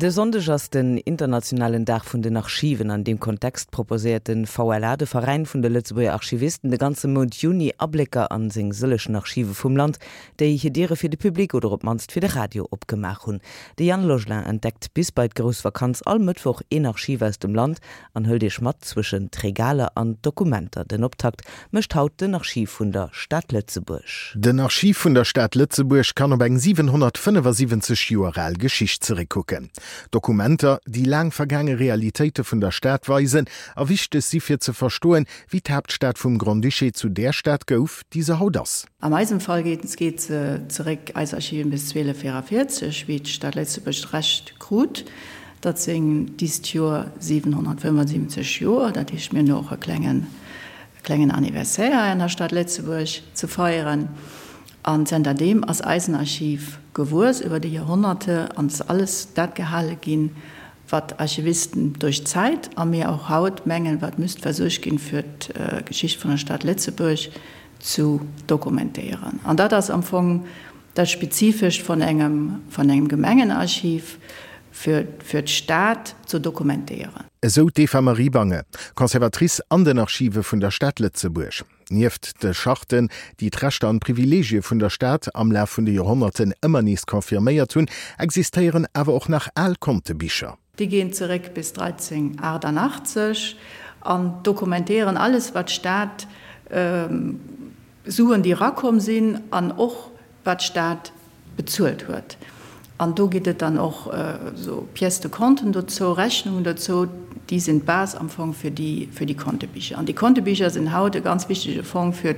De Sonndeg ass den internationalen Dag vun den Archiven. An deem Kontext proposéiert de VLA, de Veräin vun de Lëtzebuerger Archivisten, de ganze Mount Juni Ablécker an seng sëllechen Archive vum Land, déi hir Diere fir de Public oder op d'mannst fir de Radio opgemaach hunn. De Yann Logelin entdeckt bis bei d'grouss Vakanz all Mëttwoch een Archiv aus dem Land an hëlt iech mat zwëschen d'Regaler an d'Dokumenter. Den Optakt mécht haut den Archiv vun der Stad Lëtzebuerg. Den Archiv vun der Stad Lëtzebuerg kann op eng 775 Joer al Geschicht zeréckkucken. Dokumenter, déi laang vergaange Realitéite vun der Stad weisen a wichteg si fir ze verstoen, wéi d'Haaptstad vum Grand-Duché zu där Stad gouf, déi se haut ass. An eisem Fall geet se zeréck, eis Archiven, bis 1244, wéi d'Stad Lëtzebuerg d'Recht krut. Dat sinn dist Joer 775 Joer. Dat heescht, mir hunn och e klengen, e klengen Anniversaire hei an der Stad Lëtzebuerg ze feieren. An zënterdeem ass eisen Archiv gewuess iwwer déi Joerhonnerte an ass alles dat gehale ginn, wat Archivisten duerch d'Zäit a mir och haut mengen, wat müsst versuergt ginn, fir d'Geschicht vun der Stad Lëtzebuerg zu dokumentéieren. An dat ass am Fong Dat Spezifescht vun engem vun engem Gemengenarchiv fir fir d'Stad ze dokumentéieren. Esou d'Eva-Marie Bange, Conservatrice an den Archive vun der Stad Lëtzebuerg. Nieft de Charten, déi d'Rechter an d'Privileegie vun der Stad am Laf vun de Joerhonnerten ëmmer nees confirméiert hunn, existéieren awer och nach al Kontebicher. Déi ginn zeréck bis 1388 an dokumentéieren alles wat d'Stad Suen déi erakomm sinn an och wat d'Stad bezuelt huet. An do gitt et dann och esou Pièces de compten dozou, Rechnungen dozou, déi sinn d'Base am Fong fir déi fir déi Kontebicher. An déi Kontebicher sinn haut e ganz wichtege Fong fir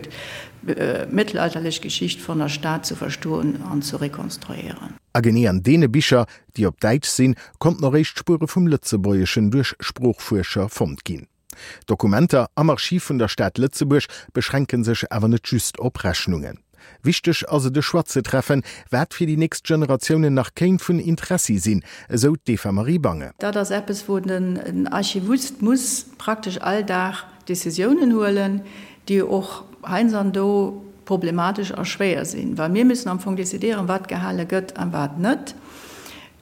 d'mëttelalterlech Geschicht vun der Stad ze verstoen an ze rekonstruéieren. A genee an deene Bicher, déi op Däitsch sinn, konnten och éischt Spuere vum Lëtzebuergeschen duerch Sproochfuerscher fonnt ginn. D'Dokumenter am Archiv vun der Stad Lëtzebuerg beschränke sech awer net just op Rechnungen. Wichteg ass et e Choix ze treffen, wat fir déi nächst Generatiounen nach kéint vun Interessi sinn, esou d'Eva-Marie Bange. Dat ass eppes, wou den Archivist muss praktesch all Dag Decisiounen huelen, déi och heiansdo problematesch a schwéier sinn, well mir müssen am Fong decidéieren, wat gehale gëtt a wat net.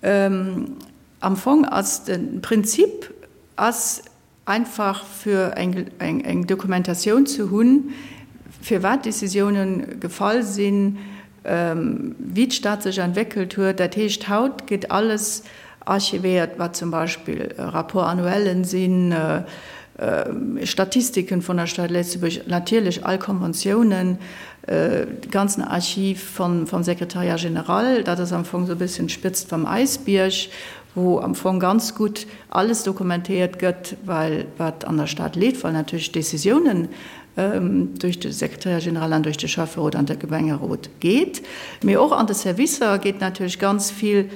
Am Fong ass de Prinzip ass einfach fir eng Dokumentatioun ze hunn, firwat Décisiounen gefall sinn, wéi d'Stad sech entwéckelt huet. Dat heescht, haut gétt alles archivéiert, wat zum Beispill Rapport-annuellen sinn, Statistiken vun der Stad Lëtzebuerg, natierlech all Konventiounen, de ganzen Archiv vum Secrétariat général. Dat ass am Fong esou e bësschen d'Spëtzt vum Äisbierg, wou am Fong ganz gutt alles dokumentéiert gëtt, well wat an der Stad leeft, well natierlech d'Décisiounen duerch de Secrétaire général an duerch de Schäfferot an de Gemengerot geet. Mee och an de Servicer geet natierlech ganz vill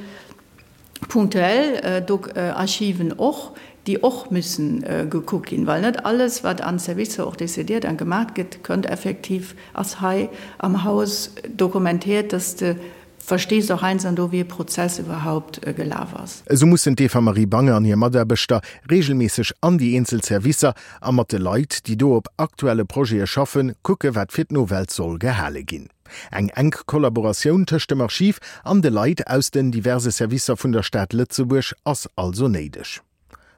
punktuell Archiven och, déi och müssen gekuckt ginn, well net alles, wat an Servicer och décidiert an gemaach gëtt, kënnt effektiv, ass hei am Haus dokumentéiert, dass de Verstees och heinsando wéi e Prozess iwwerhaupt gelaf ass. Esou mussen d'Eva-Marie Bange an hir Mataarbechter reegelméisseg an déi eenzel Servicer a mat de Leit, déi do op aktuelle Projete schaffen, kucke wat fir d'Nowelt soll gehale ginn. Eng enk Kollaboratioun tëscht dem Archiv an de Leit aus den diverse Servicer vun der Stad Lëtzebuerg ass also néideg.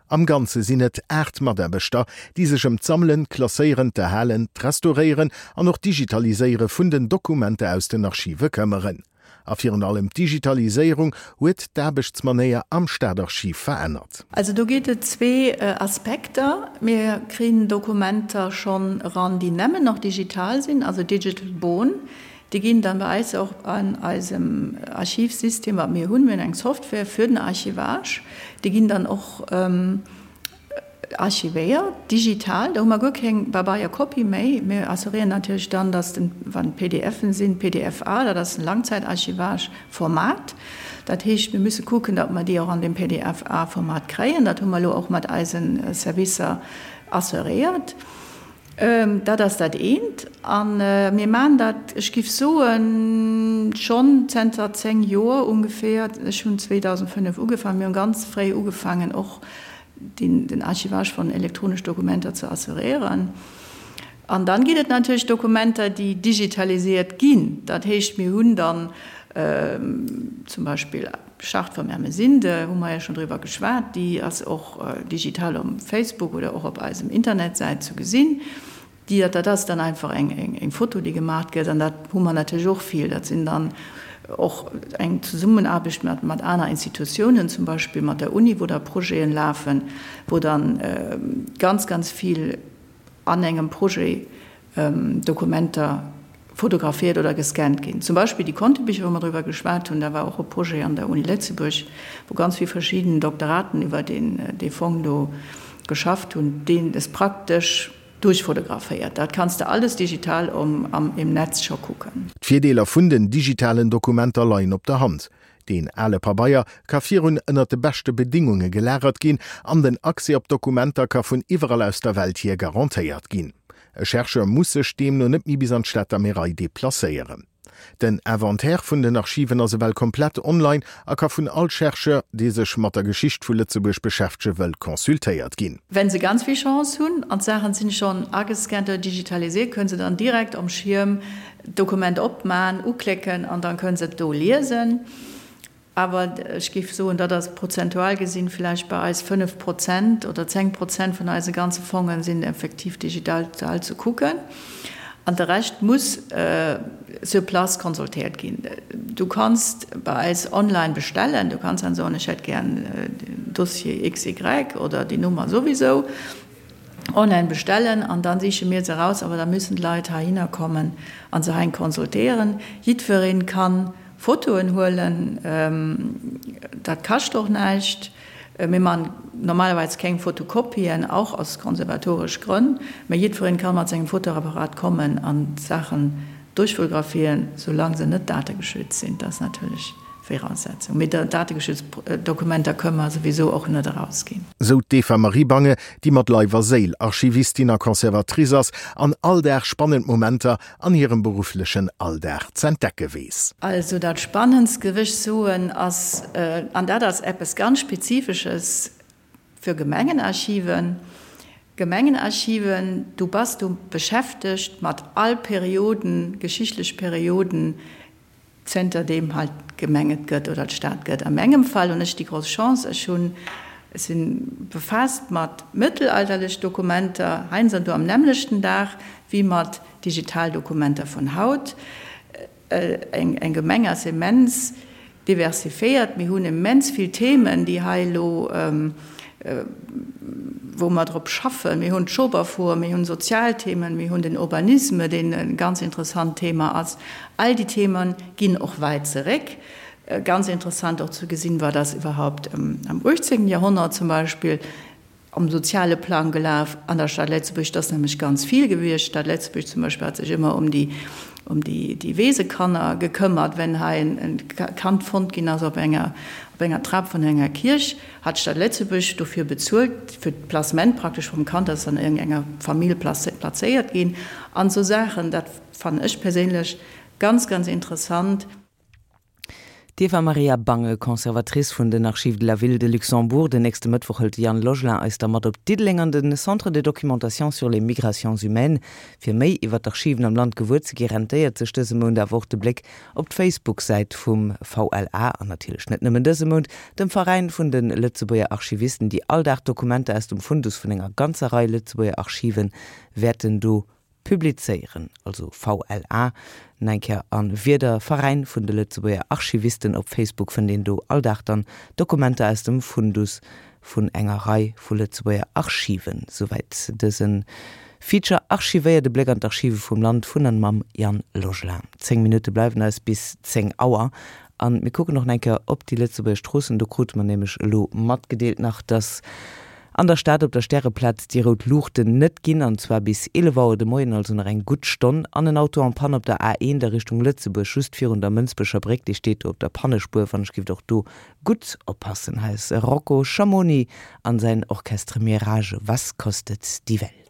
Am Ganze sinn et 8 Mataarbechter, déi sech ëm d'Sammelen, d'Klasséieren, d'Erhalen, d'Restauréieren an och d'Digitaliséiere vun den Dokumenter aus den Archive këmmeren. A virun allem d'Digitaliséierung huet d'Aarbechtsmanéier am Staatarchiv verännert. Also do geet et zwee Aspekter. Mir kréien Dokumenter schonn eran, déi nämmen nach digital sinn, also digital born. Déi ginn dann bei eis och an eisem Archivsystem, wat mir hunn, mir hunn eng Software fir den Archivage, déi ginn dann och archivéiert, digital. Do hu mer guer keng Pabeierkopie méi. Mir assuréieren natierlech dann, dass den, wann et PDFen sinn, PDF-A, dat ass en Langzeitarchivage-Format. Dat heescht, mir musse kucken, datt mer déi och an deem PDF-A-Format kréien. Dat hu mer elo och mat eise Servicer assuréiert. Dat ass dat eent. A mir maachen dat, ech giff soen, schonn zenter 10 Joer ongeféier. Ech hunn 2005 ugefaangen. Mir hunn ganz fréi ugefaangen och den Archivage von elektronesch Dokumenter ze assuréieren. An dann ginn et natierlech Dokumenter, déi digitalisiert ginn. Dat heescht, mir hunn dann. Zum Beispill d'Charte vum Ermesinde, hu mer jo schonn driwwer geschwat, déi ass och digital um Facebook oder och op eisem Internetsäit zu gesinn. Déi, dat ass dann einfach eng Foto, déi gemaach gëtt an dat hu mer natierlech och vill. Dat sinn dann och eng Zesummenaarbecht mat aner Institutiounen, zum Beispill mat der Uni, wou da Projeten lafen, wou dann ganz, ganz vill an engem Projet Dokumenter fotografiert oder gescannt ginn. Zum Beispill déi Kontebicher, wou mer driwwer geschwat hunn, da war och e Projet an der Uni Lëtzebuerg, wou ganz vill verschidden Doktoraten iwwer dee Fong do geschafft hunn, deen es praktesch duerchfotograféiert. Dat kanns de alles digital am im Netz scho kucken. D'Virdeeler vun den digitalen Dokumenter leien op der Hand. Deen ale Pabeier ka virun ënner de beschte Bedingunge gelagert ginn an den Accès op d'Dokumenter ka vun iwwerall aus der Welt hier garantéiert ginn. E Chercheur muss sech deemno net méi bis an d'Stater Märei deplacéieren. Den Inventaire vun den Archiven ass ewell komplett online a ka vun all Chercheur, dee sech mat der Geschicht vu Lëtzebuerg beschäftege wëll, consultéiert ginn. Wenn se ganz vill Chance hunn an d'Saachen sinn schonn agescannt oder digitalisiert, kënnen se dann direkt om Schierm d'Dokument opman, uklécken an dann kënnen se et do liesen. Awer ech géif soen, dat ass prozentual gesinn vläicht bei eis 5 Prozent oder 10 Prozent vun eise ganze Fongen sinn effektiv digital ze kucken. An de Rescht muss sur place consultéiert ginn. Du kanns bei eis online bestellen, du kanns dann soen, ech hätt gären den Dossier XY oder déi Nummer souwisou. Online bestellen an dann siche mir se eraus, awer da müssen d'Leit heihinner kommen an se hein consultéieren. Jiddwereen kann Fotoen huelen, dat kascht och näischt. Mir man normalerweis keng Fotokopien, och aus konservatoresch Grënn, mä jiddwereen kann mat sengem Fotoapparat kommen an d'Saachen duerchfotografieren, soulaang se net dategeschützt sinn. Dat ass natierlech Viraussetzung. Mee dategeschützt Dokumenter kënne mer souwisou och net erausginn. Sou d'Eva Marie Bange, déi mat Leif a Séil Archivistin a Conservatrice ass an all Dag spannend Momenter an hirem berufflechen Alldag z'entdecke weess. Also dat Spannendst, géif ech soen, ass, an dat ass eppes ganz Spezifesches fir Gemengenarchiven, Gemengenarchiven, du bass do beschäftegt mat all Perioden, geschichtlech Perioden, Zënter deem hei d'Gemeng et gëtt oder d'Stad gëtt. A mengem Fall hunn ech déi grouss Chance, ech hunn, ech si befaasst mat mëttelalterlech Dokumenter, heiansdo do am nämmlechten Dag, wéi mat Digitaldokumenter vun haut. Eng Gemeng ass immens diversifiéiert. Mir hunn immens vill Themen, déi hei elo, wou mer drop schaffen. Mir hunn d'Schoberfuer, mir hunn Sozialthemen, mir hunn den Urbanisme, deen e ganz interessant Thema ass. All déi Theme ginn och wäit zeréck. Ganz interessant och ze gesinn, wat ass iwwerhaupt am 18. Joerhonnert zum Beispill am soziale Plang gelaf an der Stad Lëtzebuerg. Dat ass nämlech ganz vill gewiescht. D'Stad Lëtzebuerg zum Beispill hat sech ëmmer ëm déi, ëm déi, déi Weesekanner gekëmmert. Wenn hei en Kand fonnt ginn ass op enger, op enger Trap vun enger Kierch, hat d'Stad Lëtzebuerg dofir bezuelt, fir d'Placement praktesch vum Kand, dat ass an iergendenger Famill plazéiert ginn an esou Saachen. Dat fannen ech perséinlech ganz, ganz interessant. D'Eva Maria Bange, Conservatrice vun den Archives de la Ville de Luxembourg. Den nächste Mëttwoch hëlt de Yann Logelin eis da mat op Diddeleng an de Centre de documentation sur les migrations humaines. Fir méi iwwer d'Archiven am Land gewuer ze gi, rentéiert sech dëse Mount awer och de Bléck op d'Facebook-Säit vum VLA an natierlech net nëmmen dëse Mount, dem Veräin vun de Lëtzebuerger Archivisten, déi all Dag Dokumenter aus dem Fundus vun enger ganzer Rei Lëtzebuerger Archive wäerten do publizéieren, also VLA, nach eng Kéier a Wieder, Veräin vun de Lëtzebuerger Archivisten op Facebook fënnt een do all Dag dann Dokumenter aus dem Fundus vun enger Rei vu Lëtzebuerger Archiven. Souwäit dëse Feature Archivéiert, e Bléck an d'Archive vum Land vun an mam Yann Logelin. 10 Minutte bleiwen eis bis 10 Auer an mir kucken och nach eng Kéier op déi Lëtzebuerger Stroossen. Do krute mer nämlech elo matgedeelt nach, dass An der Stad op der Stäreplaz déi rout Luuchten net ginn, an zwar bis 11 Auer de Moien, also nach eng gutt Stonn. An en Auto en panne op der A1 a Richtung Lëtzebuerg, just virun der Mënsbecher Bréck, dee steet do op der Pannespuer. Wann ech giff och do gutt oppassen. Hei ass Rocco Schamoni an säin Orchestre Mirage, Was kostet die Welt?